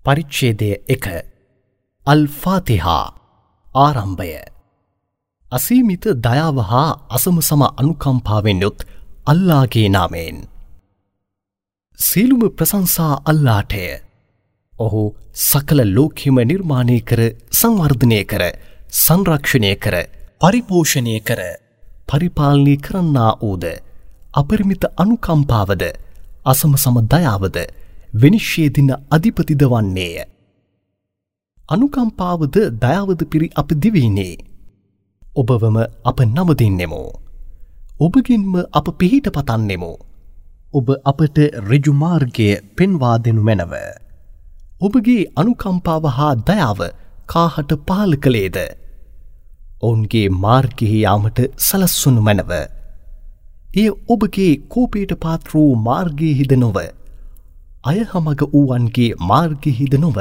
පරිච්ඡේදය 1 අල්-ෆාතිහා ආරම්භය. අසීමිත දයාව හා අසමසම අනුකම්පාවෙන් යුත් අල්ලාහගේ නාමයෙන්. සියලුම ප්‍රශංසා අල්ලාහටය. ඔහු සකල ලෝකෙම නිර්මාණය කර, සංවර්ධනය කර, සංරක්ෂණය කර, පරිපෝෂණය කර, පරිපාලනය කරන්නා වූද, අපරිමිත අනුකම්පාවද, අසමසම දයාවද, විනිශ්චය දින අධිපතිද වන්නේය. අනුකම්පාවද දයාවද පිරි අප දිවයිනේ. ඔබවම අප නමදින්නෙමු. ඔබගෙන්ම අප පිහිට පතන්නෙමු. ඔබ අපට ඍජු මාර්ගය පෙන්වා දෙනු මැනව. ඔබගේ අනුකම්පාව හා දයාව කාහට පහළ කළේද? ඔවුන්ගේ මාර්ගයෙහි යාමට සලස්වනු මැනව. එය ඔබගේ කෝපයට පාත්‍ර වූ මාර්ගයෙහිද නොව, අයහමග වූවන්ගේ මාර්ගයෙහිද නොව.